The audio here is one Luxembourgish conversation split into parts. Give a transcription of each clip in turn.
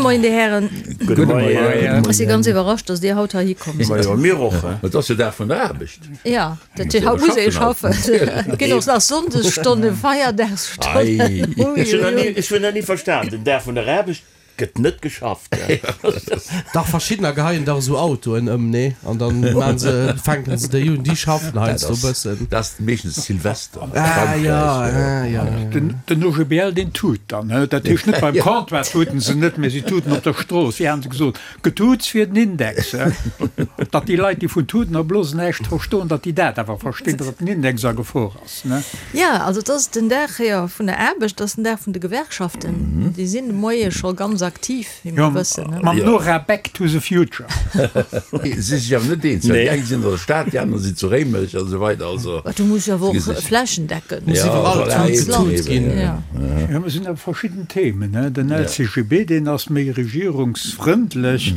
Moien, Dir Hären. Gudde Moien. Ech si ganz iwwerrascht, dass Dir haut heihi komm sidd. Majo, mir och. Et ass jo Dag vun der Aarbecht. Jo, dat heescht, haut muss ee schaffen. Et ginn och nach Sonndesstonnen, Feierdagsstonnen. Ech hunn nach ni verstan, den Dag vun der Aarbecht gëtt net geschafft. Dach, verschiddener geheien dach esou Autoen ëm, nee? An dann maan se, fänken se déi un, déi schaffen heiansdo e bëssen. Dat ass meeschtens Silvester a Ah Frankräich. jo, ah jo. Den OGBL, deen tut dann, dat heescht net beim Comptoir tuten se net, mä si tuten op der Strooss. Wéi hate se gesot, Getuuts fir den Index, datt déi Leit, déi vun Tuten a Blosen näischt verstoen, datt déi dat awer verstinn, datt den Index a Gefor ass. Jo, also et ass den Dag, jo, vun der Aarbecht, et ass den Dag vun de Gewerkschaften. Déi sinn de Moie scho ganz aktiv, wéi mer wëssen. Mam Nora Back to the Future. Si sech awer net eens, well déi eng sinn an der Stad, déi aner sinn zu Réimech a sou weider. Also Du muss jo awer och flächendeckend. Muss iwwerall Tut getut ginn. Jo, et sinn awer verschidden Themen. Den LCGB, deen ass méi regierungsfrëndlech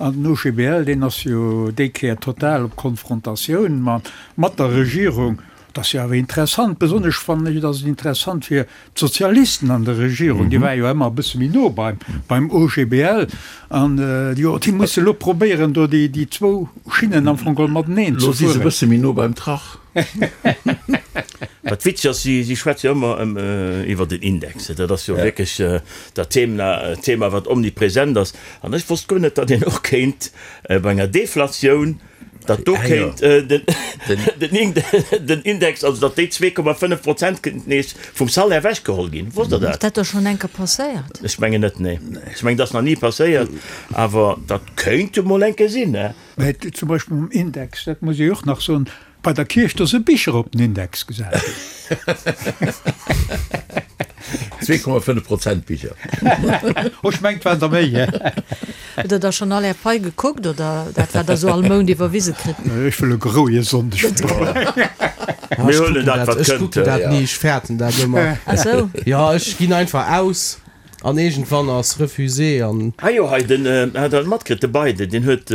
an den OGBL, deen ass jo déi Kéier total op Konfrontatioun mat der Regierung. Dat ass jo awer interessant, besonnesch fannen ech, et ass interessant fir d'Sozialisten an der Regierung, déi ware jo ëmmer e bësse méi no beim OGBL an jo, déi musse elo probéieren, do déi zwou Schinnen am Fong geholl mateneen ze fueren. Elo si se e bësse méi no beim Trach. Wat witzeg ass, si schwätze jo ëmmer iwwer den Index. Dat ass jo wierklech dat Thema, wat omnipresent ass. An ech wosst guer net, datt een och kéint bei enger Deflatioun, datt do kéint den Index, also datt déi 2,5 Prozent kéinten nees vum Salaire ewechgeholl ginn. Wosst Der dat? Ass dat da schonn eng Kéier passéiert? Ech mengen net, nee. Ech mengen, dat ass nach ni passéiert, awer dat kéint emol eng Kéier sinn, ne? Mä zum Beispill mam Index, dat muss ech och nach soen, Bei der Kierch, do si Bicher op den Index gesat ginn. 2,5 Prozent Bicher. Oh, ech mengt, et waren der méi. Hutt Der da schonn all Är Pai gekuckt oder dat, wat Der esou all Mount iwwerwise kritt? Ech wëll e grouie Sonndeg verbréngen. Mir huelen dat, wat Ech kënnt. kucken dat ni, ech fäerten dat ëmmer. Ach sou. Jo, ech ginn einfach aus. An iergendwann ass refusé an. Ah jo, hei den, hat der matkritt, de Biden, deen huet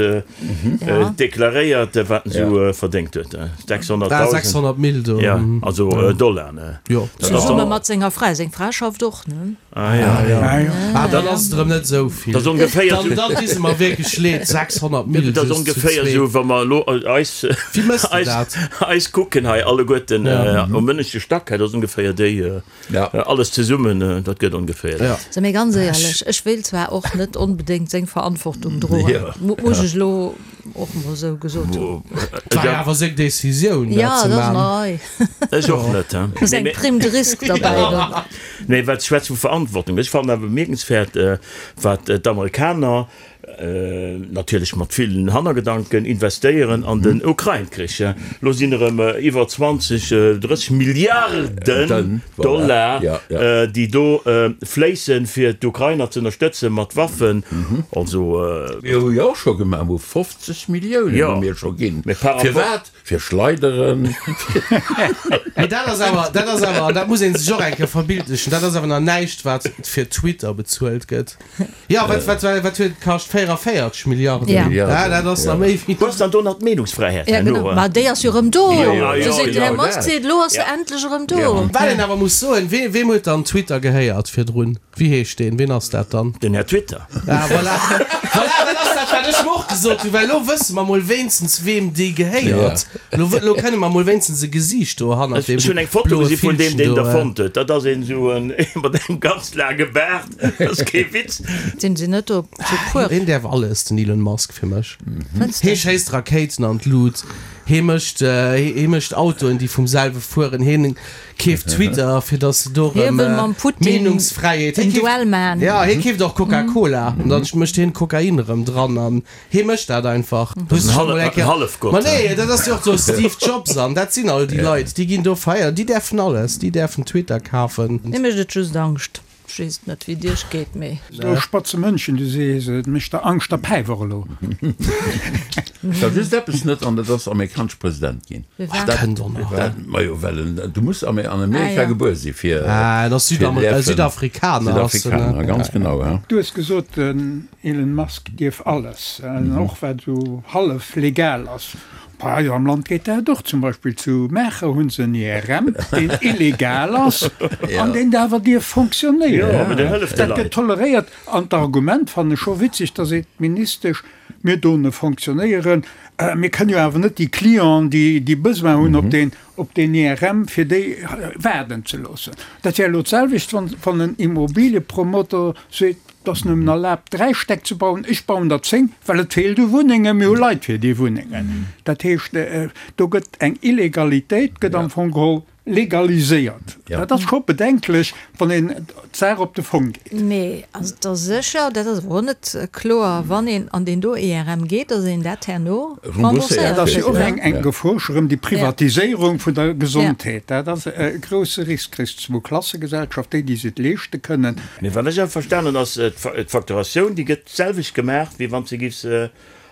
deklaréiert, wat en esou verdéngt huet, 600.000. Ah, 600 Mille do. Ja, also Dollar, ne? Jo. Zesumme mat senger Fra, seng Fra schafft och, ne? Ah jo. Ah jo. Ah, dann ass et erëm net esou vill. Dat ass ongeféier esou. Dann, dann di se mer wierklech leed, 600 Mille Dat ass just zu ongeféier zweet. esou, wa mer elo eis, Wéi mëss de eis, dat? eis kucken hei alleguerten um ënneschte Stack, dat ass ongeféier déi. Ja. Alles zesummen, dat gëtt ongeféier dat. So, mee ganz éierlech, ech wéilt zwar och net onbedéngt seng Verantwortung droen, Ja. muss ech elo och mol esou gesot hunn. Et war jo awer seng Decisioun, dat Ja, ze dat ass man. nei. Ech och net, he. Do ass eng Prime de risque derbäi dann. Nee, wat schwätz vu Verantwortung? Ech fannen awer bemierkenswäert, wat d'Amerikaner, natierlech mat villen Hannergedanken, investéieren an den Ukrain-Krich. Elo sinn erëm iwwer 20, 30 Milliarden Dollar, déi do fléissen, fir d'Ukrainer ze ënnerstëtzen mat Waffen. Also. Mir hu jo och scho gemaach, mir hu 50 Milliounen hu mir scho ginn. Firwat? Fir Schleideren. Mee dat ass awer, dat ass awer, an dat muss ee sech och eng Kéier verbildlechen, dat ass awer nach näischt, wat fir Twitter bezuelt gëtt. Jo, wat, wat, wat huet et kascht? 44 Milliarden. Ja. Ja, dat ass nach méi wéi. Wou ass dann do nach d'Meenungsfräiheet Ja, herno? genau. Ma déi ass jo erëm do. Jo, jo, Do seet den Här jo, Musk, dat. seet, elo ass se endlech erëm do. Wat een awer muss soen, wee, weem huet dann Twitter gehéiert virdrun? Wéi heescht deen? Ween ass dat dann? Den Här Twitter. Ah, voilà. Voilà, dat ass dat, wat ech mer och gesot hunn, well elo wësse mer mol wéinstens, weem déi gehéiert. Elo, elo kënne mer mol wéinstens e Gesiicht do hannert Ech deem hunn eng Foto bloe gesi vun deem, Villchen deen do. der fonnt huet. Dat ass een esou en mat engem ganz laange Baart. Dat ass kee Witz. Sinn se net do zu puer? Hien däerf alles, den Elon Musk, fir mech. Fënns de? Hie schéisst Rakéiten an d'Lut, hie mécht, hie mécht Autoen, déi vum selwe fueren, hien Keeft Twitter fir dass se do Hie rëm wëll mam Putin Meenungsfräiheet. en Duell man. Ja hie keeft och Coca-Cola an dann mécht hien Kokain erëm dran an hie mécht dat einfach. Hues du scho mol eng Kéier. Hallefgott. Ma nee, dat ass jo och do Steve Jobs an dat sinn all déi Leit, déi ginn do feiern, déi däerfen alles, déi däerfen Twitter kafen. Mir mécht et just Angscht. Ech weess et net wéi et iech geet, mee. Esou spatze Mënschen, du sees et mécht der Angscht a Päif och elo. Ech war just eppes net, an dat ass amerikanesche President ginn. Firwat? Dat Kënnt och nach. Dat, majo, well en, du muss an Amerika Ah, ja. gebuer si fir. Ah, en ass fir Südamer däerfen. Südafrikaner ass en, Südafrikaner, ganz genau, ja. Du hues gesot, den Elon Musk dierf alles, och wat esou hallef legal ass. Bei eis am Land geet dat och. Zum Beispill zu Maacher hu se en IRM, deen illegal ass an deen awer dierf fonctionnéieren. Dat gëtt toleréiert. An d'Argument fannen ech scho witzeg, da seet d'Ministesch, Mir doen e fonctionnéieren, mir kënnen jo awer net déi Clienten, déi déi Besoin hunn op deen, op deen IRM, fir déi waarden ze loossen. Dat wär elo d'selwecht, wann, wann en Immobiliepromoter seet, Et ass nëmmen erlaabt, 3 Stäck ze bauen, ech bauen der 10, well et feelt u Wunnengen, mir hu Leit fir déi Wunnengen. Dat heescht, do gëtt eng Illegalitéit gëtt am Fong geholl legaliséiert. Dat ass scho bedenklech, wann een d'Saach op de Fong geet. Mee ass et da sécher, dat ass awer och net kloer, wann een an deen do IRM geet, datt een dat herno rembourséiert kritt? Dat ass jo och eng Gefor, scho rëm déi Privatiséierung vun der Gesondheet. Dat ass e grousse Risk. Kriss d'Zwou-Klasse-Gesellschaft, déi, déi se et leeschte kënnen. Mee wat ech awer verstanen hunn, ass, d'Facturatioun, déi gëtt d'selwecht gemaach, wéi wann s de giffs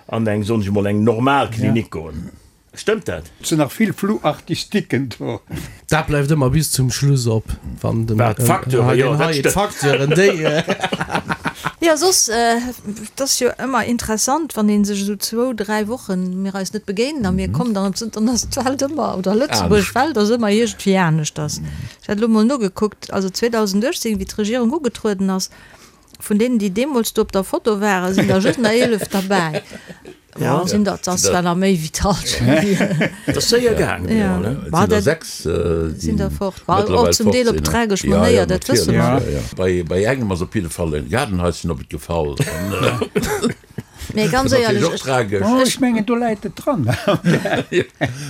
an eng, soen ech emol, eng normal Klinik goen. Stëmmt dat? Et sinn nach vill Flou-artistiquen do. Dat bleift ëmmer bis zum Schluss op, wann den Wat, d'Facteuren? Jo, dat stëmmt. D'Facteuren, déi. Jo, soss, et ass jo ëmmer interessant, wann ee sech esou zwou, dräi Wochen, mir eis net begéinen a mir kommen dann op d'Sënn, dann ass d'Welt ëmmer, oder Lëtzebuerg Welt ass ëmmer iergendwéi aneschters. Ech hat elo mol nogekuckt, also 2018, wéi d'Regierung ugetrueden ass, vun deenen, déi deemools do op der Foto waren, sinn der just nach 11 derbäi. Ja, sinn dat ass zwar nach méi wéi d'Hallschent. Dat ass séier gaangen, jo, ne? Et sinn der 6, sinn der fort. Ma och zum Deel op tragesch Manéier, dat wësse mer. Bei, bei engem ass op jidde Fall e Gaardenhaischen op et gefall. Mee ganz éierlech, ech. Tragesch. Oh, ech mengen, do läit et dran.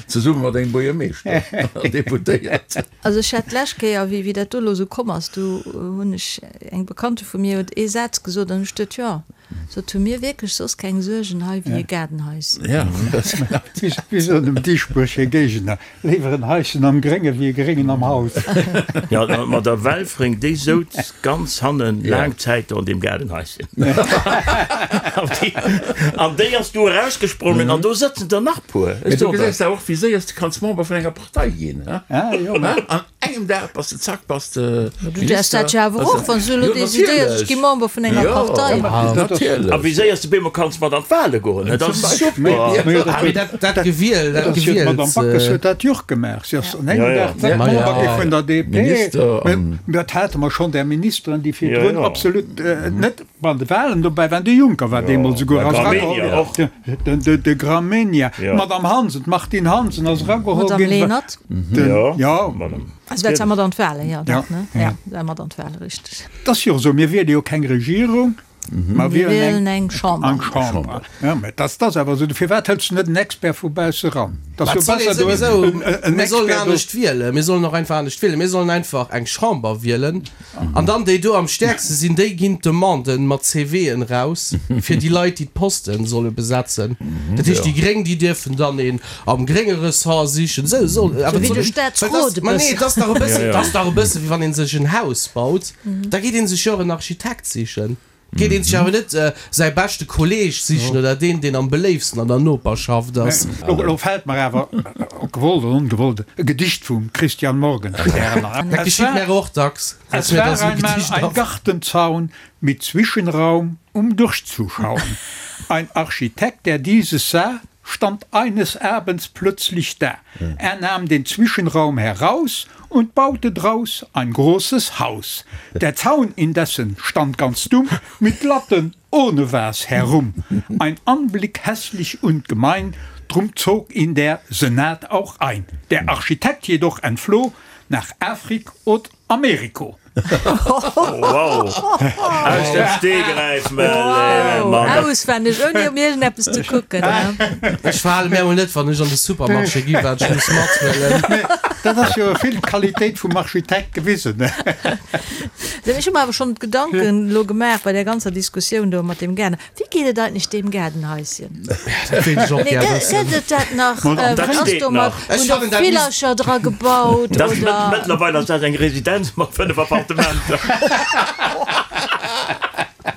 Zesumme mat engem Buergermeeschter an Deputéiert. Also ech hat d'lescht Kéier, wéi, wéi dat do elo esou komm ass, do hunn ech, eng Bekannte vu mir huet ee Saz gesot an ech duet, jo, Sot, hu mir wierklech soss keng Suergen hei wéi e Gaardenhaischen? Wéi soen dem Dieschbourg hir Géigner, Léiwer en Haischen am Grénge wéi e Gréngen am Haus. Jo, ma der Welfring, déi souz ganz hannen laang Zäit do an deem Gaardenhaischen. An déi ass du erausgesprongen an do sëtzen der nach puer. Mee du gesäis awer och, wéi séier s de kanns Member vun enger Partei ginn. An engem Dag bass de zack, bass de Du däerfs dat jo awer och, wann s du elo decidéiers, ech gi Member vun enger Partei. A wéi séier s de bemol kanns mat an d'Wale goen, dat ass super. Mee dat Gewiel, dat Gewiel. D'Madame Backes huet dat jo och gemaach. Si ass an engem Dag zack Member gi vun der DP. Mee dat hate mer schonn, där Ministeren, déi virdrun absolut net Bei de Wahlen dobäi waren, de Juncker war deemools esouguer ass erageholl ginn, de Gramegna, d'Madame Hansen, d'Martine Hansen ass erageholl ginn. D'Madame Lenert. Jo. Also dat war mat an d'Wahlen, jo, dat, ne? Jo, dat war mat an d'Wahlen, richteg. Et ass jo esou, mir wiele jo keng Regierung, mer wielen eng Chamber. Eng Chamber. Jo, mä dat ass awer esou. Firwat hëls du net en Expert vu bausse ran? Et ass jo besser, du hues en Expert do. Mir sollen anescht wielen, mir sollen och einfach anescht wielen. Mir sollen einfach eng Chamber wielen. An dann déi do am stäerkste sinn, déi ginn d'Demanden mat CVen raus fir déi Leit, déi d'Posten solle besetzen. Dat heescht, déi Gréng, déi dierfen dann een am grénge Ressort sichen. Esou soll, awer Wéi de Staatsrot e Ma nee, bëssen. et ass dach e bëssen, et ass dach e bësse wéi wann ee sech en Haus baut, da geet ee sech jo och en Architekt sichen. Geet een sech awer net säi beschte Kolleeg sichen oder deen, deen am beléifsten an der Noperschaft ass. Elo fält mer awer, ob gewollt oder ongewollt, e Gedicht vum Christian Morgenstern an. Dat geschitt mär och dacks, dass mir da sou e Gedicht Es war einmal ein Gartenzaun mit Zwischenraum, um durchzuschauen. Ein Architekt, der dieses sah, stand eines Abends plötzlich da. Er nahm den Zwischenraum heraus und baute draus ein großes Haus. Der Zaun indessen stand ganz dumm mit Latten ohne was herum. Ein Anblick hässlich und gemein, drum zog ihn der Senat auch ein. Der Architekt jedoch entfloh nach Afrik od Ameriko. Wow! Aus dem Stegreif, Wow! Auswenneg, ouni op iergendeppes ze kucken. Ech verhale mär mol net, wann ech an de Supermarché gi wat ech muss mathuelen. Dat ass jo vill d'Qualitéit vum Architekt gewisen. Ech hu mer awer schonn d'Gedanken elo gemaach bei där ganzer Diskussioun do mat deem Gaarden. Wéi geet et eigentlech deem Gaardenhaischen? Dat wéilt ech och gär wëssen. Gëtt et dat nach? Dat Wat ass steet domat? nach. Ech Hunn der fannen, dat misst. Villercher dra gebaut Dat ass oder? mëttlerweil ass dat eng Residenz mat 5 Appartementer.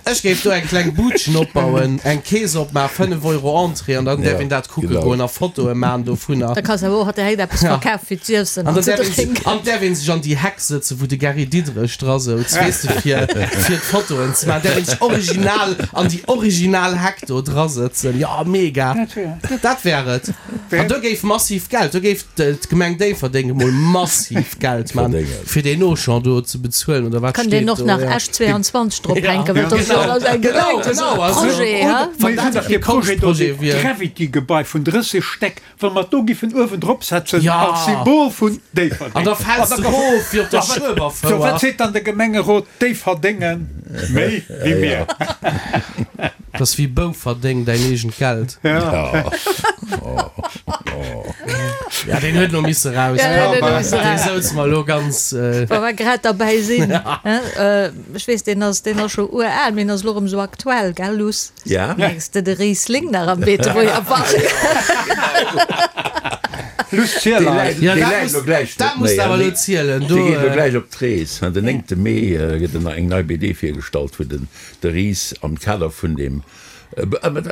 Ech géif do eng kleng Budchen opbauen, eng Kees opmaachen, 5 Euro Entrée an dann däerf een dat kucke goen a Fotoe maachen dovunner. Da kanns de awer och direkt eppes verkafe fir z'iessen An an dann ze däerf een sech, drénken. an däerf een sech an déi Heck sëtzen, wou de Gary Diderich dra souz, weess de, fir, fir d'Fotoen ze maachen. Däerf een sech original an déi original Heck do dra sëtzen. Jo, mega! Dat wär et. An do géif massiv Geld, do géif d'Gemeng Déifferdeng emol massiv Geld man, fir deen Auchan do ze bezuelen oder wat Kann deen steet och do, nach ja. Esch 22 drop hänken, well dat ass jo alles eng Genau, Gemeng, dat ass genau, e also, Projet, oder he? wann dat Dee kee Projet do, Konschtprojet dee wier. Gravity-Gebai vun 30 Stäck, wa mer do giffen uewen drop setzen Ja. als Symbol vun Déifferdeng. An da fäls de erof wéi op der Schueberfouer. So, wat seet dann de Gemengerot Déifferdenge méi wéi mir? Dat ass wéi Bouferdeng, däin eegent Geld. Ja, deen huet elo misse raus. Ja, deen huet elo misse Dee raus. souz mer elo ganz. Wa mer grad derbäi sinn, ech weess, deen ass, deen ass scho ural, mee en ass elo erëm esou aktuell, gell Luss? Ja. Mengs de de Riesling nach am Beetebuerger Park? Luss, ziel eis. Ja, Dee dat läit muss, elo gläich dat net muss méi, de awer hein. elo zielen. Do, Dee geet elo gläich op d'Rees. Den 9. Mee gëtt eng nei BD virgestallt, wou den De Ris am Kader vun deem,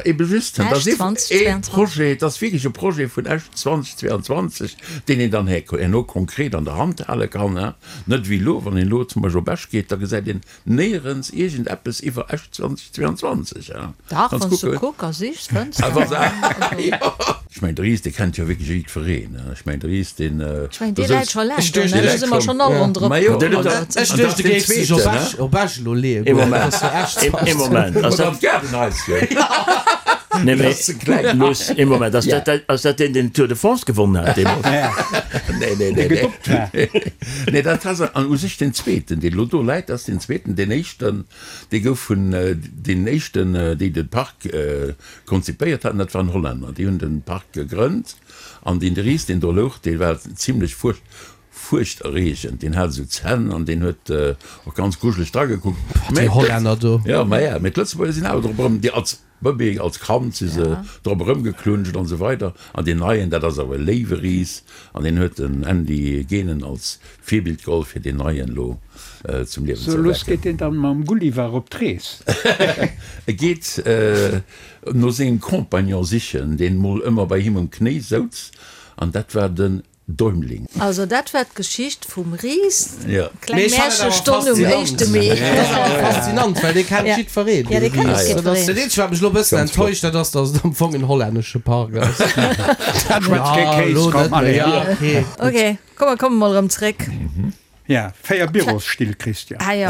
ebe just, dat ass Esch ee 2022. Projet, dat ass wierklech e Projet vun Esch 2022, deen een dann herno konkret an der Hand hale kann, net wéi elo, wann een elo zum Beispill op Esch geet, da gesäit een néierens iergendeppes iwwer Esch 2022. Dach, Wann wann s s du kucke. kuck a sichs, fënns Ah, de. wa se, jo. Ech mengen, de Ris, dee kennt jo wierklech jiddwereen. Ech mengen, de Ris, deen, Ech mengen, do dee läit souz. scho laang Ech do, duecht, ne? dee Do si mer schonn all ronderëm Ma jo, geplënnert. Ech an dat duecht, ass du deen géifs dech op zweeten, Esch, ne? op Esch elo leeë Ee goen. Dat Moment, ass jo Esch ee Moment, ass Oder dat. an d'Gaardenhaisschen. Nee, mee, Dat ass ze kleng. Luss, ee Moment, ass dat, ass dat deen, deen d'Tour de France gewonnen hat deemools? Nee, nee, nee, nee. Nee, dat ass an u sech deen zweeten, deen elo do läit, dat ass deen zweeten. Deen éischten, dee gouf vun deenen éischten, déi de Park konzipéiert haten, dat waren Hollänner, déi hunn de Park gegrënnt. An deen de Ris, deen do louch, dee war zimlech fuercht, fuerchterreegend. Deen hat esou Zänn an deen huet och ganz grujeleg dragekuckt. Déi Hollänner do. Jo, ma ja, mee d'Lëtzebuerger sinn awer drop erëm, déi als Bëbee, als Kand si se drop erëmgeklunscht an esou weider. An deen neien, dat ass awer e léiwe Ris an deen huet den Andy Genen als Virbild geholl, fir deen neien elo zum Liewen So, ze lues erwecken. geet deen dann mam Gulliver op d'Rees. E geet no sengem Compagnon sichen, deen mol ëmmer bei him um Knéi souz, an dat war den Däumling. Also dat war d'Geschicht vum Ris, Ja. kleng Mee ech fannen awer Märchestonn um faszinant. éischte Mee. Dat ass awer faszinant, well dee kennt Ja. jiddwereen, Ja, dee dee kennt Ris. jiddwereen. Dat ass dat eenzegt, wat mech elo e bëssen Ganz flott. enttäuscht, dat ass, datt et am Fong en hollännesche Park ass. Schwätz kee Ja, Kéis, elo komm, net méi. allez. Ja, okay. Ok, komm, mer komme mol erëm zréck. Ja, 4 Bürosstill, Christian. Ah jo.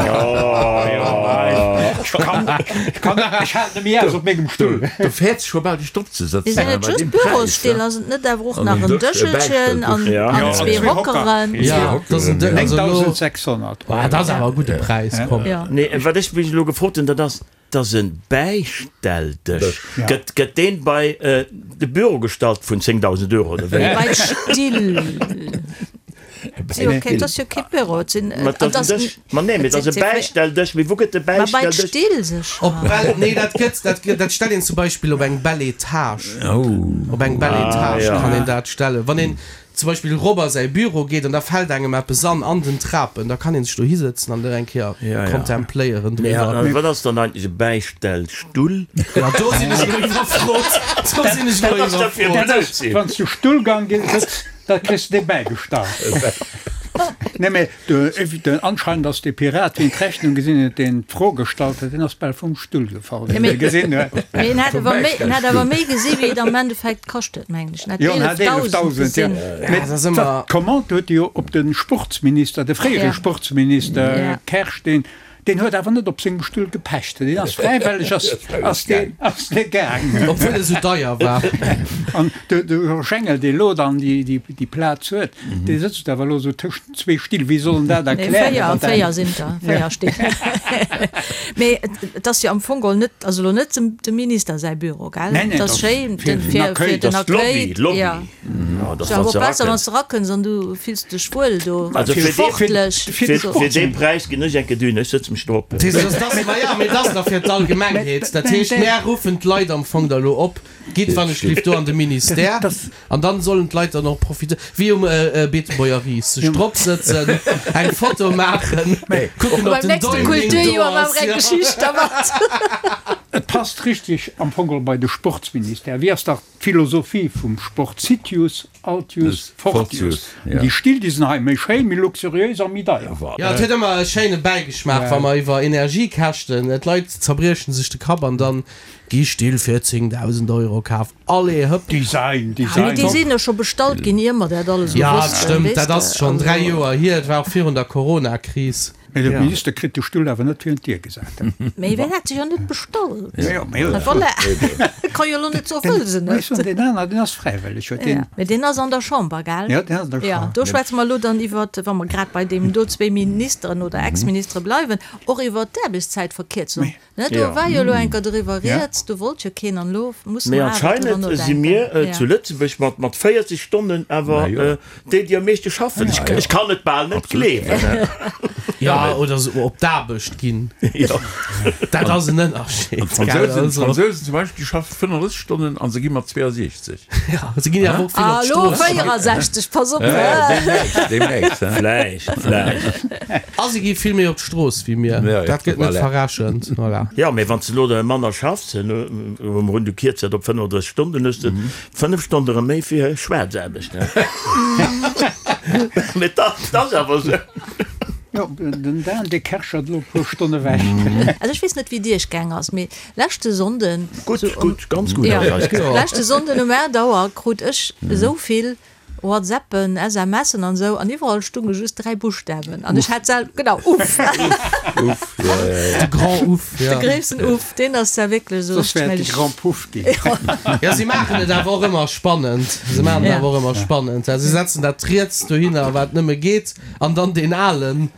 Ech kann, ech kann, ech halen net méi aus op mengem Stull. Do fäerts scho bal dech drop ze Sinn sëtzen et bei just deem Präis. Bürosstill? Ass et net awer och An nach en en Dësch, e Dëschelchen an Bäistelldësch. an zwee Hockeren? Ja, dat ass en Dësch. Also elo, 9.600 ah, dat ass awer e gudde Präis, komm. Ja. Nee, wat ech mech elo gefrot hunn, dat ass, dat ass e Bäistelldësch. Gëtt, gëtt deen bei de Büro gestallt vun 10.000 Euro oder wéi? Bei d'Still. Et ass jo kee Büro, et sinn. Ma et ass en Dësch. Ma nee, mee et ass e Bäistelldësch. Mee wou gëtt de Ma bei Bäistelldësch? d'Still sécher. Op bell, nee, dat gëtt, dat gëtt, dat stellt een zum Beispill op eng belle Etage. Op eng belle Etage ja. kann een dat stellen. Wann een zum Beispill erop a säi Büro geet an da fält engem eppes an, an den Trapen, da kann een sech do hisëtzen an dat eng Kéier Ja, ja. kontempléieren Mee driwwer. wat ass dann eigentlech e Bäistellstull? Ja, do sinn ech elo iwwerfrot. Do sinn ech elo Wat ass dat fir e iwwerfrot. Blödsinn? Wann s du Stullgang sëtz, Da kriss de dee bäigestallt. Nee, mee de, anscheinend ass dee Pirat, wien d'Rechnung gesinn huet, deen d'Fro gestallt huet, deen ass bal vum Stull gefall, wéi en e gesinn huet. Mee en hat awer méi, en hat awer méi gesi wéi et am Endeffekt kascht huet, mengen ech. En hat Jo, en hat 11.000 11.000, jo. gesinn. Mee dat ass ëmmer. D'Commande huet e jo op de Sportsminister, de fréiere Ja. Sportsminister Ja. Kersch, deen, Deen huet awer net op sengem Stull gepecht, deen ass fräiwelleg ass, ass deen, ass dee gaangen. Obwuel e sou deier war. An de, de Georges Engel, dee lo dann déi, déi, déi Plaz huet, dee sëtzt awer elo sou tëschent zwee Still. Wéi soll en dat Nee, erklären? véier, datt dat- véier sinn der, véier Still. Mee et, et ass jo am Fong geholl net, also elo net dem, dem Minister säi Büro, gell? Nee, nee, Et ass dat ass schéin, fir den, den fir, Accueil. fir den Dat ass d'Lobby, Accueil. d'Lobby. Ja. Ja, dat Ass awer wann och se besser, wann erakënns. s de erakënns an du fills dech wuel do. Also fir dee, Sportlech. fir, fir dee Präis ginn ech enke dünn, ech sëtze mech drop. Dat ass, ma ja, mee dat ass da fir d'Allgemengheet. Dat heescht, mär ruffen d'Leit am Fong da lo op, Gitt wann ech lift do an de Ministère an dann sollen d'Leit dann och profitéieren, wéi um Beetebuerger Ris, sech drop sëtzen, eng Foto maachen, kucken ob Beim den nächste Däumling do Kulturjoer ass. maache mer eng Geschicht dermat. Et passt richteg am Fong geholl bei de Sportsministère. Wéi ass dach d'Philosophie vum Sport? Citius, Altius, Fortius. An déi Still, déi sinn hei méi schéin, méi luxuriéis a méi deier. Jo, et huet ëmmer e schéine Bäigeschmaach, wa mer iwwer Energiekäschten, d'Leit zerbriechen sech de Kapp an dann gi Still fir 10.000 Euro kaf. Allez, hëpp! Design, Design. Mee déi sinn jo scho bestallt ginn, ier mer dat alles esou wossten, weess de. Jo, dat stëmmt, dat ass schonn 3 Joer hier, et war och virun der Coronakris. Mee de Minister kritt de Stull awer net virun d'Dier gesat. Mee wien hat se jo net bestallt? Voilà, ka jo elo net soen, wëll se net. Ech soen, deen aner, deen ass fräiwëlleg, huet deen. Mee deen ass an der Chamber, gell? Jo, deen ass an der Chamber. Jo, do schwätze mer elo dann iwwert, wa mer grad bei deem do zwéi Ministeren oder Ex-Ministere bleiwen, och iwwert d'Aarbechtszäitverkierzung. Ne, do war jo elo enker doriwwer rieds, do wollt jo keen an elo musse Mee mer awer driwwer anscheinend si nodenken. mir zu Lëtzebuerg mat mat 40 Stonnen awer déi, déi am meeschte schaffen. Ech ech kann et bal net gleewen. Jo, oder sou op d'Aarbecht ginn. Dat ass en Ënnerscheed, An gell? d'Fransousen, Also. d'Fransousen zum Beispill, déi schaffe 35 Stonnen a se gi mat 62. Jo, se ginn jo awer och vill Ah, op elo d'Strooss. 64, pass op! Deemnächst, deemnächst, he? Vläicht, vläicht. A se gi vill méi op d'Strooss wéi mir. Dat gëtt net verrechent. Voilà. Jo, mee wann s de elo manner schaffs, huele mer un, du kierz dat op 35 Stonnen, dann hues de 5 Stonne erëm méi fir Schwaarzaarbecht. Mee dat ass awer esou. Jo, den Dan, dee kerschert elo e puer Stonne ewech. Also ech weess net, wéi et iech gaang ass, mee leschte Sonnden, Gutt, gutt, ganz gutt ass eis gaang. Leschte Sonnden um 8 Auer krut ech esou vill WhatsAppen, SMSen an esou an iwwerall stunge just 3 Buschtawen an ech hat sel genau Uff. Uff, ja, ja, ja. De Grand Uff, ja. De gréissten Uff, deen ass ja wierklech esou Soss wär et de Grand Puff ginn. Ja, si maachen et awer och ëmmer spannend. Se maachen et awer och ëmmer spannend. Ja, si setzen dat riets dohinner, wat nëmme geet, an dann deen alen.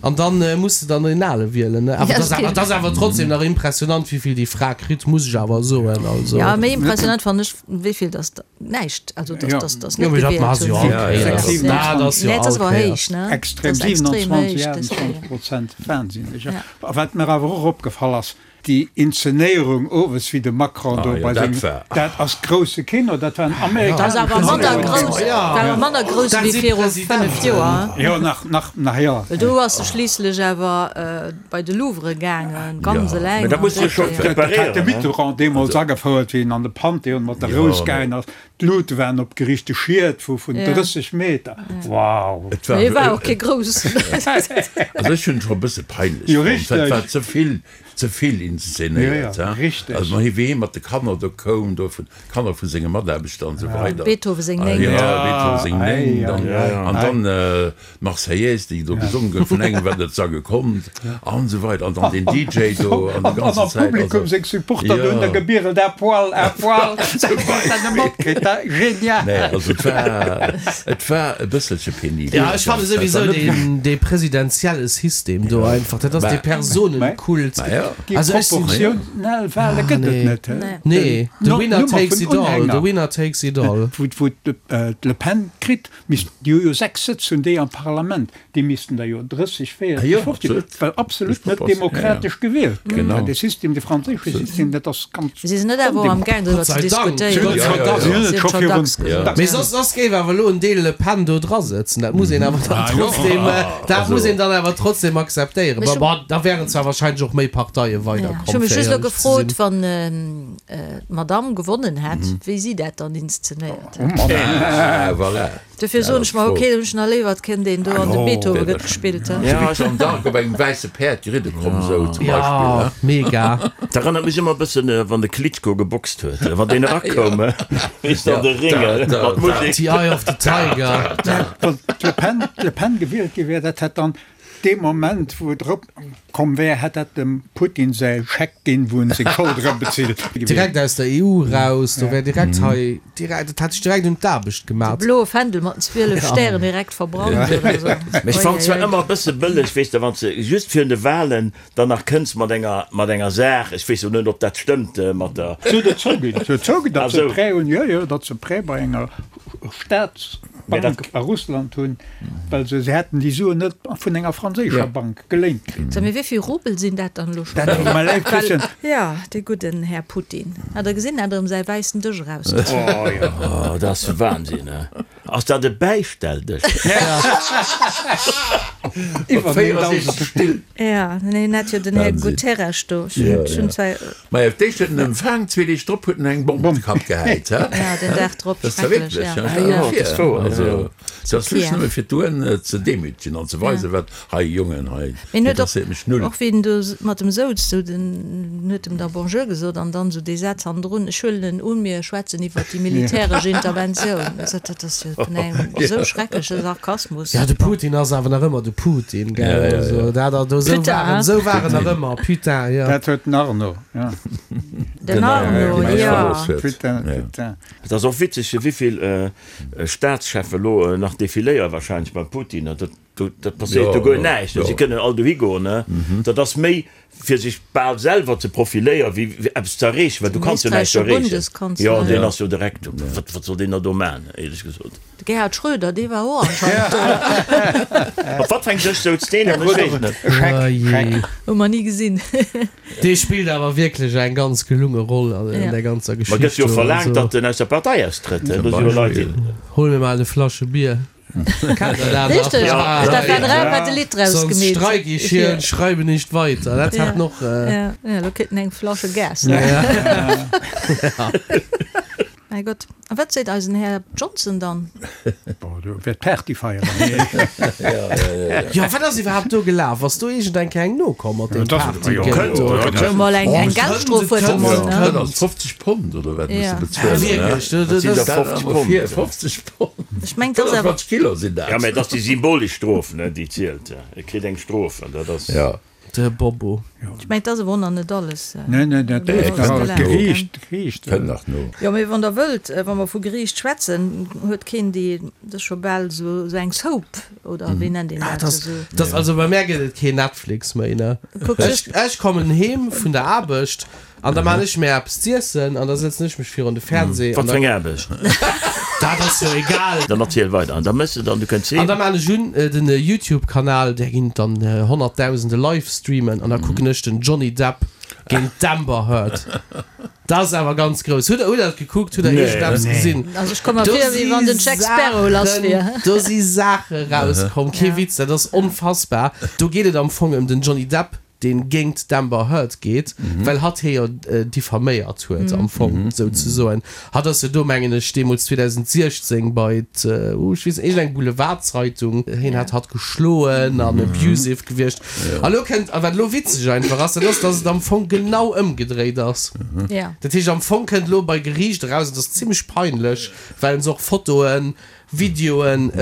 An dann muss de dann deen ale wielen, ne? Awer dat ass awer, dat ass awer trotzdem nach impressionant, wéi vill déi Fra kritt, muss ech awer soen. Also. Ja, méi impressionant fannen ech, wéi vill dass der näischt, also dass, dass, dass Jo, net mee dat gewielt maache se jo hunn. all Kéiers. Ja, Dat ass jo Nee, dat ass all awer Kéiers. héich, ne? Extrem, Dat ass extrem 27, héich, dat 28 Prozent, wahnsinneg. A wat mir awer och opgefall ass, Déi Inzenéierung owes, wéi de Macron do bei sengem, dat ass grousse Kino, dat war en Dat ass awer manner grouss, war awer manner grouss wéi viru 5 Joer. Jo, nach, nach, nach, jo. Well do ass e schliisslech awer bei de Louvre gaangen, ganz eleng. Mä dat muss sech scho Dat hat de preparéieren. Mitterrand deemools agefouert, wéi en an de Panthéon mat der Rous gaangen ass. D'Luute waren opgeriicht, de Schiet vu vun 30 Meter. Wow! Et war, Mee war och kee groussen. Also ech hunn et scho e bësse peinlech Jo, fonnt. Dat richteg. war ze vill, ze vill inszenéiert, Jo, jo, hein. richteg. Also wéi hie mat de Kanner do koum, do vun Kanner vu senge Mataarbechter an esou weider. Beethoven seng Néngt. Jo, Beethoven seng Ei, Néngt. An, ei, ei, an ei. dann d'Marseillaise, déi do gesongen gouf vun engem, wat net sange konnt an esou weider. An dann deen DJ do an déi An ganzen am Zäit. Publikum Also, seng Supporter do hunn da jo. gebierelt, à poil, à poil. Dat huet dat net matkritt, dat genial. Nee, also et war, et war e bësselche penibel. Ja, ech fanne souwisou deen, dee presidentielle System do einfach, dat ass dee Personenkult. Ma jo. Déi Also ech sinn. proportional Wahle gëtt et net, he? Nee, the No, winner Nummer takes vun it all, the Unhänger, winner takes it all. wou, wou d'Le Pen kritt, Missten, déi hu jo 6 Sëtz hunn déi am Parlament, déi missten der jo 30, 40, Jo, 50, absolut. well absolut net demokratesch gewielt gëtt. Genau. Dee System, dee franséische System, dat ass ganz Si sinn net awer am gaang driwwer Gott ze sei Dank. diskutéieren. Gott sei Dank. Si hunn et scho virun Ja. Mee soss, soss géif awer elo en Deel Le Pen do dra sëtzen. Dat muss een awer dann trotzdem, dat muss een dann awer trotzdem akzeptéieren. Mee Bon, ech hu- bon, da wären zwar wahrscheinlech och méi Parteie weiderkomm, Ech hu mech fir just elo éierlech ze gefrot, sinn. wann d'Madame gewonnen hätt, wéi si dat dann inszenéiert hätt. Ah, voilà. Dofir soen ech mer, ok, dann hunn ech nach léiwer, et kënnt een do an de Beethoven gëtt gespillt. Ja, Jeanne d'Arc op engem wäisse Päerd geridde komm, sou zum Beispill. Ja, mega. Dat erënnert mech ëmmer e bëssen, wann de Klitschko geboxt huet, wann deen erakoum, weess de, an de Ring mat Musek. The Eye of the Tiger. Wann d'Le Pen, d'Le Pen gewielt gi wär, dat hätt dann Dee Moment, wou et erop komm wär, hätt dat dem Putin säi Scheck ginn, wou en seng Schold erëmbezilt. Direkt aus der EU raus, do wär direkt hei, direkt, dat hätt sech direkt un d'Aarbecht De gemat. bloe Fändel mat den 12 Stären direkt verbrannt oder esou. Mee ech fannen zwar ëmmer e bësse bëlleg, weess de, wann s de just virun de Wahlen dann nach kënns mat enger, mat enger Saach, ech weess jo net, ob dat stëmmt, mat der. Se huet et zouginn, se huet zouginn, datt Ah se sou. Prêt hunn, jo, jo, datt se Prêt bei enger Staatsbank a Russland hunn, well se hätten déi Suen net vun enger franséischer Bank geléint kritt. So, mee wéi vill Rubel sinn dat dann elo schonn? Dat tut mer leid, Christian. Jo, dee gudden Här Putin. Hat Der gesinn, hat erëm säi wäissen Dësch erausgezunn. Oh jo, dat ass Wahnsinn, he? Ass dat e Bäistelldësch? Iwwer 64 Still. Ja, nee, en hat jo den Här Guterres do. Ech hunn zwar. Majo, d'éischt huet en empfaang, zwee Deeg drop huet en eng Bomm op de Kapp gehäit. Ja, den Dag drop, Dat ass wierklech, ja. Dat ass wouer. Also, dat ass just nëmme fir d'UN ze demütegen an ze weisen, wat hei, Jongen, hei interesséiert mech null. Och wéi en do mat em souz, sou den huet em da Bonjour gesot an dann sou dee Saz hannendrun, ech huelen en un, mir schwätzen iwwert déi militäresch Interventioun. Dat ass jo vun engem esou schreckleche Sarkasmus. Ja, de Putin ass awer nach ëmmer de Putin, gell? Also dat ass do, esou war en, esou war en nach ëmmer, Putain, jo. Dat huet den Arno, jo. Den Arno, jo. Putain, putain. Et ass och witzeg, wéivill Staatscheffen elo nach defiléiere wahrscheinlech beim Putin. Dat Dat passéiert do guer näischt. Si kënnen all dohi goen. Dat ass méi fir sech bal selwer ze profiléieren, wéi fir eppes ze erreechen, well du kanns jo näischt erreechen. Jo, deen ass jo direkt, wat wat soll deen da do maachen, éierlech gesot. De Gerhard Schröder, dee war och anscheinend do. Op wat fir eng Dësch souz deen dann? Ech weess et net. Scheck, Hu mer ni gesinn. Dee spillt awer wierklech eng ganz gelunge Roll an där ganzer Geschicht. Ma gëtt jo verlaangt, datt en aus der Partei austrëtt. Do si jo Leit, déi. Hol mir mol e Flasche Bier. Richteg, Stefan Raab hat e Lidd draus Sonst gemeet. streik ich hier und schreibe nicht weiter. Dat hat noch. Ja, ja, lo kritt en eng Flasche Gas. Mäi Gott, a wat seet eisen Här Johnson dann? Bon, do wäert Party feieren. Jo, wat ass iwwerhaapt do gelaf? Ass do iergend eng Kéier eng nokomm mat deem Partygeld do? Jo, mol eng eng Geldstrof huet e mol, ne? Dat ass 50 Pond oder wat muss de bezuelen? Wierklech? Dat sinn der 50 Pond. 50 Ech meng, dat ass awer. 25 Kilo sinn dat. Ja, mä et ass déi symbolesch Strof, ne, déi zielt. E kritt eng Strof an dat ass. Ja. De Bobo. Ech meng, dat ass awer och nach net alles. Nee, nee, dat leeft nach alles. D'Geriicht, d'Geriicht. Kënnt nach no. Jo, mee wann Der wëllt, wa mer vu Geriicht schwätzen, huet keen déi, dat ass scho bal esou eng Soap, oder wéi nennt een dat? Esou. Dat ass, also bei mär gëtt et keen Netflix méi, ne. Ech, ech kommen heem vun der Aarbecht An da maan ech mär eppes z'iessen an da sëtzen ech mech virun de Fernseh. Wat fir eng Aarbecht? Dat ass jo egal. Dann erziel weider an da mëss de dann, du kënns heem. An da maan ech un den Youtube Kanal, där ginn dann honnertdausende Livestreamen an da kucken ech den Johnny Depp géint d'Amber Heard. Dat ass awer ganz grouss. Hutt der hutt der dat gekuckt? Hutt der iergendeppes gesinn? Also ech komm mer vir wéi wann den Jack Sparrow lass wier. Do si Saache rauskomm, kee Witz, dat ass onfassbar. Do geet et am Fong ëm den Johnny Depp, deen géingt d'Amber Heard geet, well hatt hie jo diffaméiert huet am Fong souzesoen. Hatt ass jo do, mengen ech, deemools 2016 bei d', uh, ech weess net, iergendeng Boulevardzeitung, hien hat hatt geschloen an abusive gewiescht. A lo kënnt, a wat elo witzeg einfach ass, dat ass, datt et am Fong genau ëmgedréit ass. Dat heescht, am Fong kënnt elo bei Geriicht eraus, et ass zimmlech peinlech, well se och Fotoen, Videoen,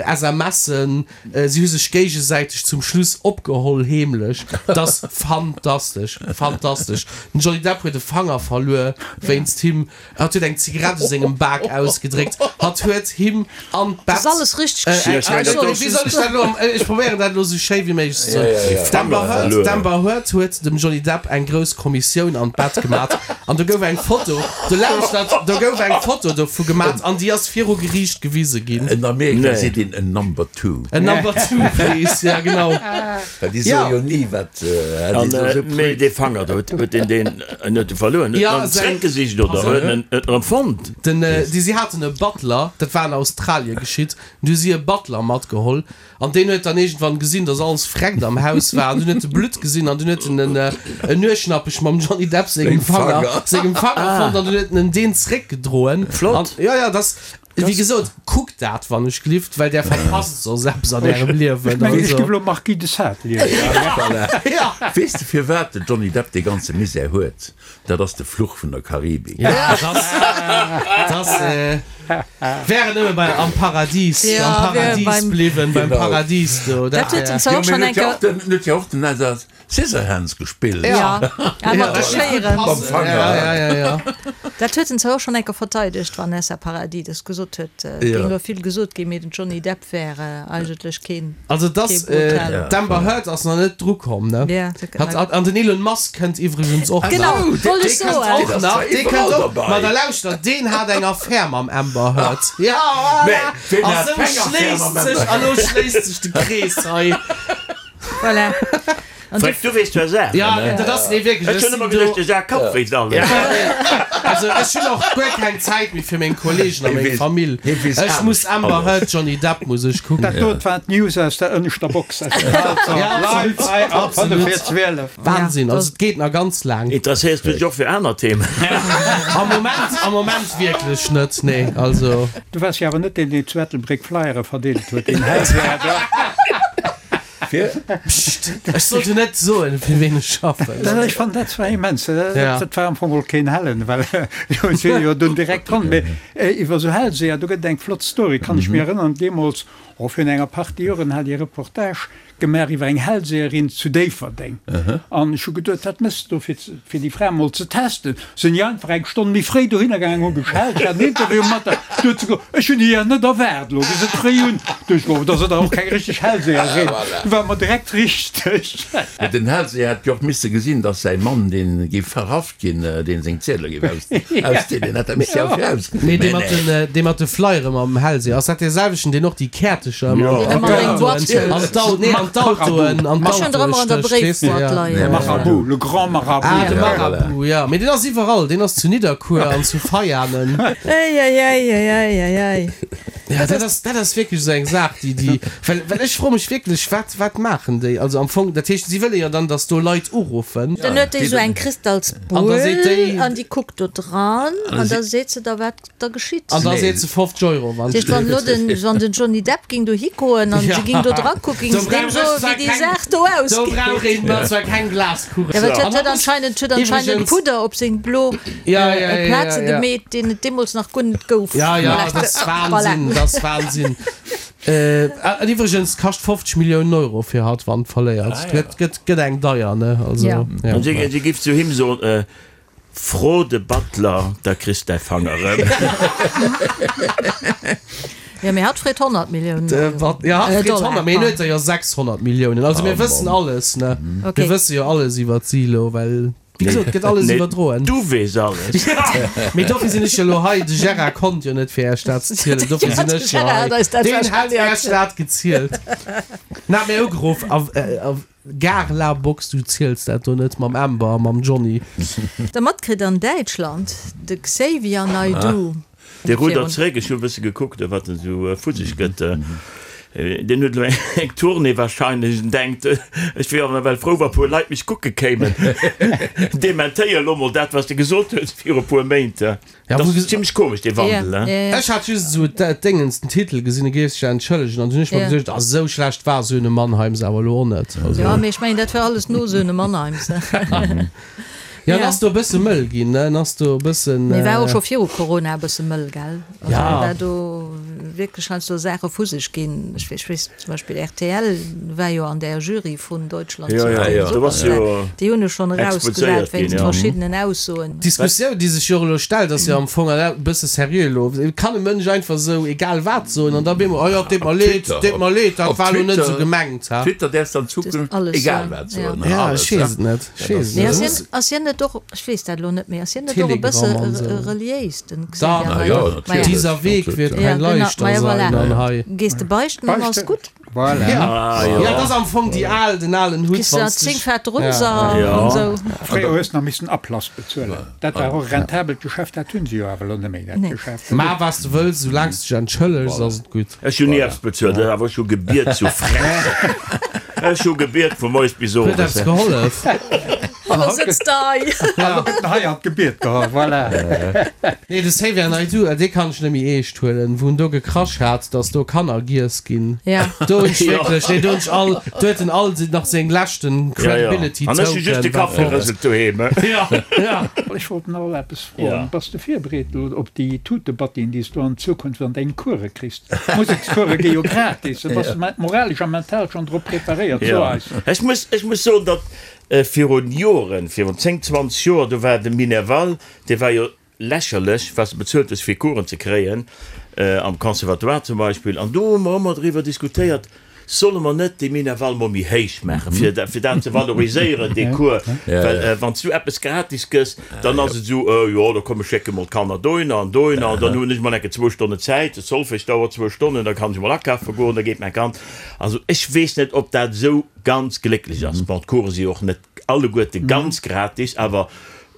SMSen, si hu sech géigesäiteg zum Schluss opgeholl, heemlech. Dat ass fantastesch, fantastesch. Den Johnny Depp huet e Fanger verluer wéinst him. Hatt huet eng Zigarett u sengem Bak ausgedréckt. Hatt huet him an d'Bett. Dat ass alles richteg geschitt. Wéi soll ech dat elo, ech probéieren dat elo esou schéi wéi méiglech ze soen. D'Amber Heard, d'Amber Heard huet dem Johnny Depp eng grouss Kommissioun an d'Bett gemat an do gouf eng Foto, do lauschtert, do gouf eng Foto dovu gemat an déi ass viru Geriicht gewise ginn. En Amerika seet een en Number Two. En Number Two, please, ja genau. Well déi soe jo ni wat. An mee dee Fanger do, huet deen deen en huet e verluer? Huet en en zréckgesicht oder huet en en erëm fonnt? Den, déi si haten e Butler, dat war an Australie geschitt, du hu si e Butler matgeholl an deen huet dann iergendwann gesinn, datt alles freckt am Haus war an dunn huet e Blutt gesinn an dunn huet en en en Nueschnappech mam Johnny Depp sengem Fanger sengem Fanger fonnt an dunn huet en en deen zréckgedroen. Flott. An jo, jo, dat ass. Wéi gesot, kuckt dat wann ech glift, well där verpasst soss eppes an ärem Liewen. Ech mengen, ech géif elo Marquis de Sade liesen. Ja. Weess de firwat de Johnny Depp dee ganze Misär huet? Dat ass de Fluch vun der Karibik. Ja, dat ass, wär en nëmme bei, am Paradies, am Paradies bliwwen, beim Paradies do, dat wär. Jo, mee en huet jo och den, en huet jo och den Scissorhands gespillt. Ja, ja mat de Schéieren. Mam Fanger. Ja, ja, ja, ja. Dat huet en zwar och schonn eng Kéier verteidegt, d'Vanessa Paradis, dass gesot huet, et géing elo vill gesot ginn, mee den Johnny Depp wär eigentlech keen, Also dass kee Brutalen. d'Amber Heard ass nach net dru komm, ne? Ja, Hat, hat, an den Elon Musk kënnt iwwregens och nach. Genau, wollt ech Dee kënnt soen. och nach, dee kënnt och, ma da lauschtert, deen hat eng Affär mam Amber Heard. Ja, voilà! Ween A hat sou keng Affär schléisst mam Amber sech, a lo schléisst sech de Krees hei. Voilà. An Freck, du weess zwar Saachen, Ja, ne? dat ass, nee wierklech, Ech ech hunn sinn ëmmer do. geduecht, de Jacques Kapp wéisst alles. Ech Also ech hunn och guer keng Zäit méi fir meng Kollegen a meng Famill. Ech muss Amber Heard, Johnny Depp muss ech kucken. Dat dot waren d'News aus der ënneschter Box aus dem Walzer live hei ab 5 vir 12. Wahnsinn, also et geet nach ganz laang. Interesséiers du dech och fir aner Themen? Am Moment, am Moment wierklech net, nee, also. Du waars jo awer net deen, deen zu Ettelbréck Flyere verdeelt huet, deen Hellseher. Fir? Pscht, ech sollt jo net soen, fir ween ech schaffen. Ech fannen dat zwar immens. Dat war am Fong och keen Hellen, well jo si jo dunn direkt dran. Mee iwwer esou Hellseher, do gëtt et eng flott Story, kann ech mir erënneren, deemools, oh virun enger Partie Joren, hat ech e Reportage gemaach iwwer eng Hellseherin zu Déifferdeng. An ech hu geduet, wat méchs de do, fir fir déi Fra mol ze testen? Sinn ech einfach eng Stonn méi fréi dohinner gaangen, hu geschellt, ech hat en Interview mat der. Du huet se gesot, ech hunn déi jo net erwaart, elo gi se fréi un. Du ech gesot, da ass et och keng richteg Hellseherin. Du war mer direkt richteg. Mee den Hellseher hätt jo och misse gesinn, datt säi Mann, dee géif verhaft ginn, deen seng Ziedele géif ausdeelen, hätt dat misse jo virausgesinn. Mee dee mat den, dee mat de Flyere mam Hellseher, ass dat dee selwechten, deen och déi Käertecher ëmmer an d'Autoen, an d'Au, nee, an d'Autoen, an d'Autoe stécht, weess de, ja. De Marabout, le grand Marabout. Ah, de Marabout, ja. Mee deen ass iwwerall, deen ass zu Nidderkuer an zu Veianen. Eieieiei. Ja, dat ass, dat ass wierklech esou eng Saach, déi, déi, well, well ech froe mech wierklech, wat, wat maachen déi? Also am Fong, dat heescht, si wëlle jo dann, datt do Leit uruffen. Dann huet déi esou eng An da seet Kristalsbull déi. an déi kuckt do dran an da seet se da, wat da geschitt. An da seet se 50 Euro, wann. Dat heescht, wann elo den, wann den Johnny Depp ging dohi goen an se ging do dra kucken, ging se deem soen, wéi déi Saach do ausgeet. Do brauch een mer zwar keng Glaskugel. Ja, well et huet anscheinend, huet anscheinend Pudder op seng blo Plaze gemeet, deen et deemools nach guer net gouf. Ja, ja, dat ass Wahnsinn, dat ass Wahnsinn. An iwwregens, kascht 50 Milliounen Euro fir hatt, wann verléiert. Gëtt, gëtt, gëtt eng deier, ne? Also, ja. An si, si giff zu him soen, Fro de Butler, da kriss däi Fang erëm. Jo, mee hatt freet 100 Milliounen Euro. Jo, hatt freet 100, mee hien huet der jo 600 Milliounen. Also mir wëssen alles, ne? Mir wësse jo alles iwwert si elo, well, wéi gesot, et gëtt alles iwwerdroen. Du weess alles. Mee dofir sinn ech jo elo hei. De Gérard konnt jo net fir Iech dat ze zielen, dofir sinn ech jo hei. Deen hat Iech dat gezielt. En hat mir ugeruff a. Gare la Box, du ziels dat do net mam Amber a mam Johnny. Der matkritt an Däitschland, de Xavier Naidoo. Dee ruddert zeréck, ech hu e bësse gekuckt, wat en esou vu sech gëtt. Deen huet elo eng Tournée warscheinlech en denkt, ech wier awer nawell frou, wa puer Leit mech kucke kéimen. Dementéier elo mol dat, wat s de gesot hues viru puer Méint. Ja, Dat ass zimmlech komesch, dee Wandel, ne? Ech hat just esou d'Déngens, den Titel gesinn, e géif sech entschëllegen, an dunn hunn ech mer geduecht, ah, esou schlecht war Söhne Mannheims awer elo och net. Also. Jo, mee ech mengen, dat war alles no Söhne Mannheims. Jo, en ass do e bësse mëll ginn, ne? En ass do e bëssen. Mee war och scho viru Corona e bësse mëll, gell? Also Ja. war do wierklech heiansdo Saache vu sech ginn. Ech weess zum Beispill rtl war jo an där Jury vun Deutschland Ja, sucht ja, den ja. Do ass Superstar. jo Déi hunn ech schonn erausgesat exposéiert ginn, wéinst ja. verschiddenen Aussoen. D'Diskussioun, déi sech jo och elo stellt, ass jo am Fong, an dat e bësse seriö elo, Kann e Mënsch einfach esou egal wat soen an da op eemol, Oh jo, et deet mer Op leed, Twitter, et deet mer leed, dat op war elo net esou Twitter, gemengt, ha? Twitter däerfs de an Dat Zukunft alles egal soen, wat ja. soen, Ja, alles, ech weess et net, ech Dat weess ass et Mee net. ass Et hien, muss. ass hien net och, ech weess dat elo net méi, ass hien net och e Telegram bësse an esou. reliéis, den Da, Xavier Na jo, Naidoo? Maja. natierlech, Dieser Weg wird natierlech. Ja, kein genau, leichter maja, sein voilà. an hei. Gees de beichten an ass Beichten, gutt. Voilà. Ja, Ah, jo. ja, dat ass am Fong déi al, den alen Hutt, Kriss de wann nach s 10 dech. Fett Ja. Runser Ja. an sou. Fréier hues nach missen Ablass bezuelen. Dat war och e rentabelt Geschäft, dat hunn se jo awer elo net méi, dat Nee. Geschäft. Maach wat s de wëlls, soulaang s de dech entschëllegs, ass et gutt. Ech hunn ni eppes bezuelt, awer ech hu gebiet zu Frech. Ech hu gebiet vu moies bis Huet owes. eppes gehollef? An da sëtzt de hei. An lo gëtt en hei an d'Gebiet geholl, voilà. Nee, de Xavier Naidoo, dee kann ech net méi eescht huelen, wou en do gekrasch hat, datt do Kanner giess ginn. Ja. Do hunn ech wierklech, nee, do hunn ech all, do huet en all nach seng leschten Credibility An ech hu just de Token Kapp war fort. gerëselt doheem. Ja, ja. Ech wollt nach eppes froen. Ja. Bass de virbereet elo op déi Tutebattien, déi s du an Zukunft an deng Course kriss? D'Musekscourse gi jo gratis. Da bass de moralesch a mental schonn drop preparéiert, so Ja. eis. Ech muss, ech muss soen, datt Virun Joren, virun 10, 20 Joer, do war de Minerval, dee war jo lächerlech, wat s de bezuelt hues fir Coursen ze kréien, am Conservatoire zum Beispill. An do hu mer ëmmer driwwer diskutéiert, solle mer net dee Minerval mol méi héich maachen, fir fir dat ze valoriséieren, dee Cours. Well wann s du eppes gratis gëss, dann ass et esou, jo, da komm ech schécke mol d'Kanner dohinner an dohinner an dann hunn ech mol enke zwou Stonnen Zäit, de Solfège dauert zwou Stonnen, da kann ech mol akafe goen, da geet mäi Kand. Also ech weess net, ob dat esou ganz glécklech ass. Bon, d'Course si och net alleguerte ganz gratis, awer.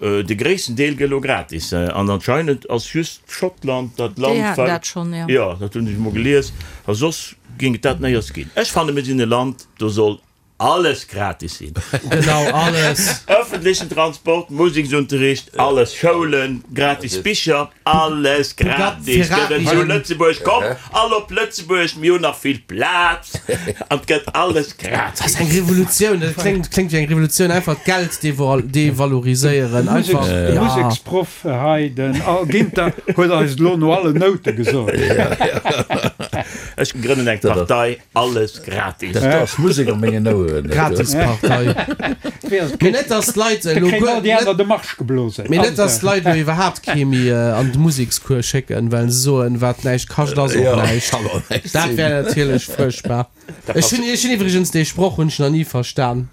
De gréissten Deel gëtt elo gratis an anscheinend ass just Schottland dat Land, Déi haten dat schonn, jo. Jo, dat hunn ech emol gelies. A soss géing et dat néiers ginn. Ech fanne mir sinn e Land, do soll alles gratis sinn. Genau, alles. Ëffentlechen Transport, Museksunterricht, alles, Schoulen, gratis Bicher, alles gratis gëtt et zu Lëtzebuerg. Kommt all op Lëtzebuerg, mir hunn nach vill Plaz an et gëtt alles gratis. Dat ass eng Revolutioun, dat kléngt, kléngt wéi eng Revolutioun, einfach d'Geld devaloriséieren, einfach, De Museksproff hei, den Al Ginter, huet eis et elo no allen Noute gesot. Ech grënnen eng Partei, Alles gratis. Dat ass Musek an mengen Oueren. Gratispartei. Mee net dass d'Leit elo guer net, mee net dass d'Leit elo iwwerhaapt kee méi an de Musekscours schécken, well se soen, wat näischt kascht ass och näischt. Dat wär natierlech fuerchtbar. Ech hunn, ech hunn iwwregens dee Sproch hunn ech nach ni verstan.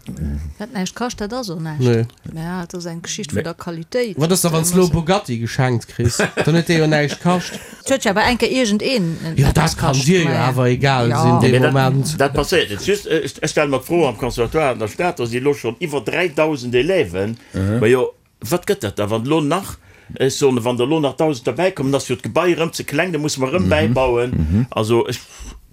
Wat näischt kascht, dat ass och näischt. Nee. Mä et ass eng Geschicht vun der Qualitéit. Wat ass da wann s de elo e Bugatti geschenkt kriss? Dann huet dee jo näischt kascht. Et huet jo awer eng Kéier iergendeen Jo, dat kann dir jo awer egal sinn dee Moment. Dat passéiert net. Just, ech stelle mer d'Fro, am Conservatoire an der Stad, do si elo schonn iwwer 3.000 Élèven. Majo, wat gëtt dat da, wann elo nach, ech soen, wann der elo nach 1.000 derbäikommen, ass jo d'Gebai erëm ze kleng, da musse mer erëm bäibauen. Also ech.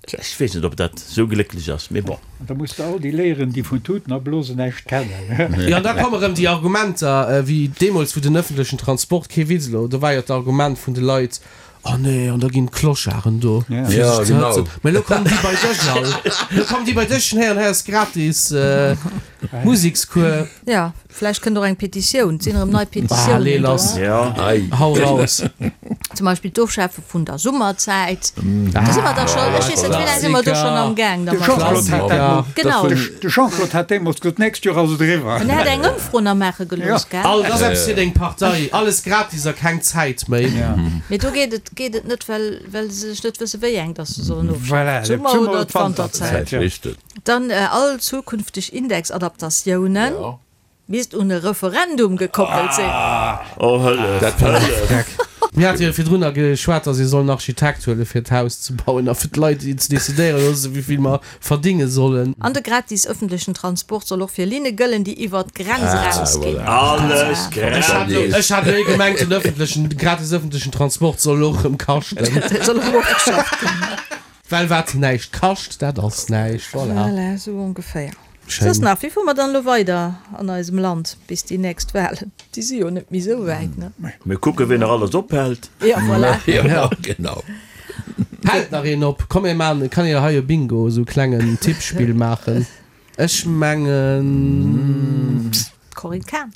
Ech weess net, ob dat esou glécklech ass, mee bon. An da muss de all déi léieren, déi vun Tuten a Blosen näischt kennen. Jo, an da komme rëm déi Argumenter, wéi deemools, wou den ëffentlechen Transport, kee Witz elo, do war jo d'Argument vun de Leit, Oh nee, an da ginn d'Clocharden do, fir sech ze hëtzen. Mä elo kommen déi bei dech all, elo kommen déi bei dech, hei an hei ass gratis Musekscours. Jo, vläicht kënnt och eng Petitioun. Et sinn erëm nei Petitiounen Allez, do. lass. Hau raus. Zum Beispill d'Ofschafe vun der Summerzäit. Do si mer da schonn, ech weess net, wéi laang si mer do schonn am Gaang De dermat. Jean-Claude hat dat mol, Genau. de Jean-Claude hat deemools gesot, d'nächst Joer ass et eriwwer. En hat eng Ëmfro nach maache gelooss, gell? All, dat ass eppes fir deng Partei. Alles gratis a keng Zäit méi. Mee do geet et, geet et net, well, well se sech net wësse wéi eng dass se sollen ofschafen, Voilà, d'Summer d'Summer oder oder d'Wanterzäit. d'Wanterzäit, jo. Dann all zukünfteg Indexadaptatiounen misst un e Referendum gekoppelt sinn. Oh Hëllef, Hëllef! Mir hate jo virdrunner geschwat, datt ee soll en Architekt huele fir d'Haus ze bauen a fir d'Leit ze decidéiere loosse wéi vill mer verdinge sollen. An de gratis ëffentlechen Transport soll och fir Linne gëllen, déi iwwer d'Grenz erausginn. Alles gratis! Ech hat elo gemengt, den ëffentlechen, gratis ëffentlechen Transport soll och erëm kaschten. Soll erëm ofgeschafft ginn. Well wat näischt kascht, dat ass näischt. Voilà. Voilà, esou ongeféier. Schéin. Soss nach, wéi fuere mer dann elo weider an eisem Land bis déi nächst Wahlen? Déi si jo net méi esou wäit, ne? Mir kucken, wien nach alles ophält. Ja, voilà. Ja, genau. Hält nach een op? Komm mir maachen, kann een hei e Bingo, esou e klengen Tippspill maachen. Ech mengen. D'Corinne Cahen.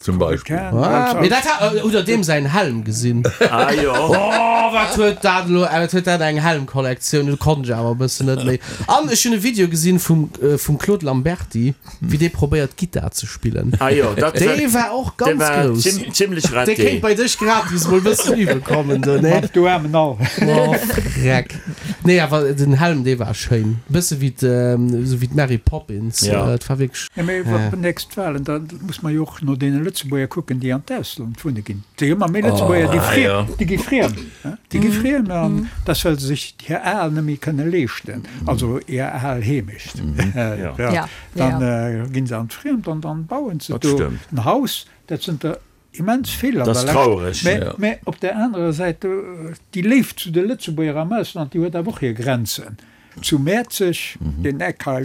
Zum Beispill. Ah, mee dat hat, hutt der deem säin Helm gesinn? Ah jo. Oh, wat huet dat elo, wat huet dat eng Helmkollektioun, do konnt ech awer e bëssen net méi. An ech hunn e Video gesinn vum, vum Claude Lamberty, wéi dee probéiert Gittar ze spillen. Ah jo, dat Dee war och dee ganz war grouss. zim, zimlech Dee raté. kéint bei dech gratis mol bëssen übe kommen do, nee? Du aarmen Al. Oh, Freck. Nee, awer den Helm, dee war schéin. Bësse wéi esou wéi d'Mary Poppins. Ja. Et war wierklech. Mee iwwer déi nächst Wahlen, da muss mer jo och no deene Lëtzebuerger kucken, déi an d'Ausland wunne ginn. Et si ëmmer méi Lëtzebuerger, déi friem, déi gi friem, déi gi friem an dat well se sech hir al net méi kënne leeschten, also hir al Heemecht. Dann ginn se an d'Friemd an dann bauen se do en Haus. Dat sënn der immens vill an der Lescht. Mä, mä op där anerer Säit, déi Léift zu de Lëtzebuerger am Ausland, déi huet awer och hir Grenzen. Zu Mäerzeg, deen Eck hei,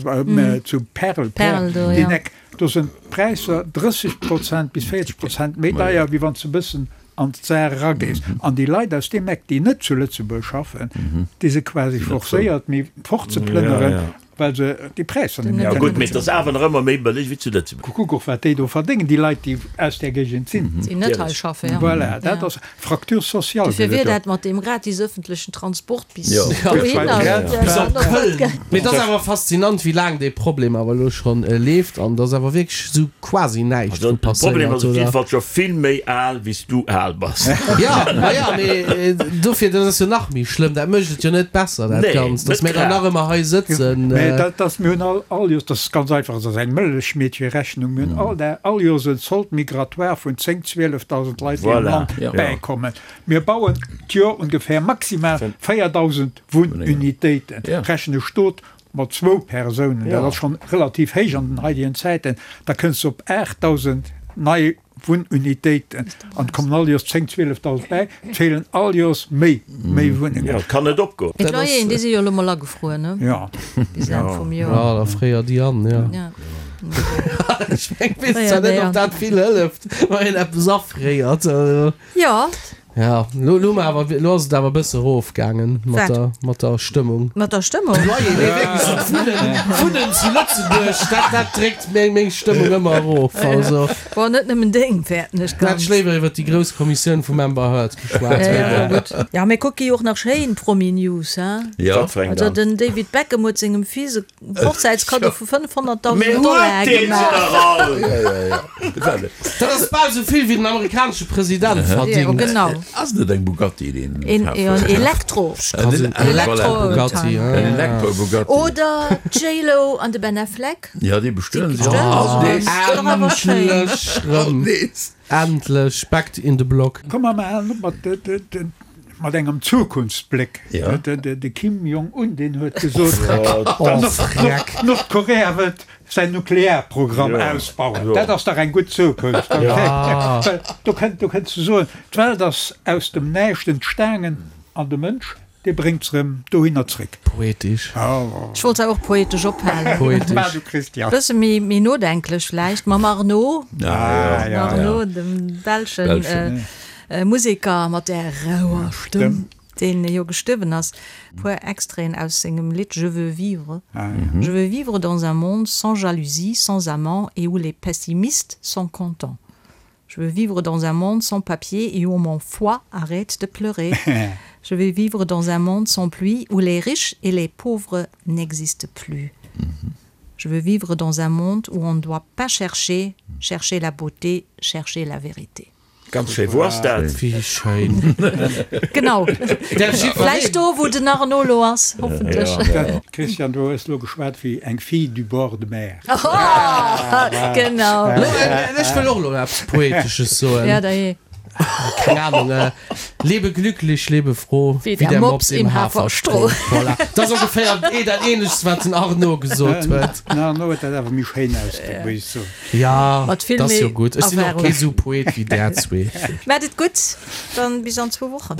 zu Perl, Perl, deen Eck, do sinn d'Präisser 30 Prozent bis 40 Prozent méi deier, wéi wann s de e bëssen an d'Saar eragees. An déi Leit aus deem Eck, déi net zu Lëtzebuerg schaffen, déi si quasi forcéiert, méi fortzeplënneren, Well se déi Präisser net méi Ja kënne gutt, mee et ass bezuelen. awer nach ëmmer méi bëlleg wéi zu Lëtzebuerg. Kuck och wat déi do verdéngen, déi Leit déi aus där Géigend sinn. Déi net hei schaffen, ja. Voilà, dat ass Fracture sociale Dofir gëtt wier et do. dat mat deem gratis ëffentlechen Transport bis Jo. dohinner. Bis op Köln. Mee et ass awer faszinant, wéi laang dee Problem awer elo schonn leeft an dass awer wierklech esou quasi näischt Also dru de Problem passéiert, ass op oder? jidde Fall scho vill méi al wéi s du al bass. Jo, ma jo, mee dofir, dat ass jo nach méi schlëmm, dat mécht et jo net besser dat Nee, Ganzt, dass net mir dann grad. nach ëmmer hei sëtzen. Mee dat ass, mir hunn all, all Joers, dat ass ganz einfach, dat ass eng Mëllechmeedcherechnung, mir hunn all Dag, all Joers en Solde migratoire vun 10, 12.000 Leit, déi am Voilà, Land ja. bäikommen. Mir bauen d'Joer ongefähr maximal 4.000 Wunnunitéiten, Ja. rechne Stot mat zwou Persounen, dat ass schonn relativ héich an den heidegen Zäiten, da kënns de op 8.000 nei. Wunnunitéiten an et kommen all Joers 10, 12.000 bäi. Et feelen all Joers méi, méi Wunnengen. Jo, et kann net opgoen. Mee d'Loyeren, déi si jo elo mol agefruer, ne? Jo. Bis Enn vum Joer. Jo, da fréier déi an, jo. Ja. Ech meng, weess zwar net, ob dat vill hëlleft, wann een eppes afréiert. Jo. Ja, lo, lo, awer, lo ass et awer e bësse erofgaangen mat der, mat der Stëmmung. Mat der Stëmmung? Loyer, nee, wierklech, so d'Wunnen, d'Wunnen zu Lëtzebuerg, dat, dat dréckt meng, meng Stëmmung ëmmer erof. Also. Bon, net nëmmen deng, fäerten ech ganz. Hätt ech léiwer iwwer déi grouss Kommissioun vum Amber Heard geschwat. Ja, ja, gutt. Ja, mir kucke jo och nach schéin Promi-News, hein? Ja. Wat fir eng Also dann? den David Beckham huet sengem Fils e Hochzäitskaddo vu 500.000 Mee Dollar huet deen se gemaach. dach all! Ja, ja, ja. Dat ass bal esou vill wéi den amerikanesche President verdingt. Jo, genau. Ass net eng Bugatti deen Een, kaf jo, en huet? Elektro. En Elektro-Bugatti. En Elektro-Bugatti. Oder d'J-Lo an de Ben Affleck. Ja, déi bestueden sech. Déi bestueden sech. Endlech rëm. Endlech back in the block. Komm mer halen op mat mat engem Zukunftsbléck. De Kim Jong-un, deen huet gesot, Nordkorea wëllt säin Nuklearprogramm ausbauen. Dat ass dach eng gutt Zukunft. Well do kënnt, do kënns de soen, d'Welt ass aus dem Näischt entstaangen an de Mënsch, dee bréngt se erëm dohinner zréck. Poetesch. Ech wollt se och poetesch ophalen. Poetesch. War du, Christian. Bësse méi, méi nodenklech vläicht mam Arnaud. Arnaud, dem belschen Museker mat där rauer Stëmm, deen jo gestuerwen ass. E puer Extraiten aus sengem Lidd Je veux vivre. Je veux vivre dans un monde sans jalousie, sans amants et où les pessimistes sont contents. Je veux vivre dans un monde sans papier et où mon foie arrête de pleurer. Je veux vivre dans un monde sans pluie où les riches et les pauvres n'existent plus. Je veux vivre dans un monde où on ne doit pas chercher, chercher la beauté, chercher la vérité. Ganz schéi, wou ass dat? Wéi schéin. Genau. Vläicht do, wou den Arnaud lo ass, hoffentlech. Christian, du hues lo geschwat wéi eng Fille du bord de mer. Genau. Ech wëll och lo eppes Poetesches soen. Ja, dajee. Keng Ahnung. Lebe glücklich, lebe froh, wéi der Mops im Haferstroh. Voilà. Dat ass ongeféier dat Ähnlechst, wat den Arnaud gesot huet. Den Arnaud huet dat awer méi schéin ausgedréckt, muss ech soen. Ja, Mat vill dat ass jo méi gutt. Ech sinn och Erfahrung. kee sou Poet wéi där zwee. Maat et gutt, dann bis an zwou Wochen.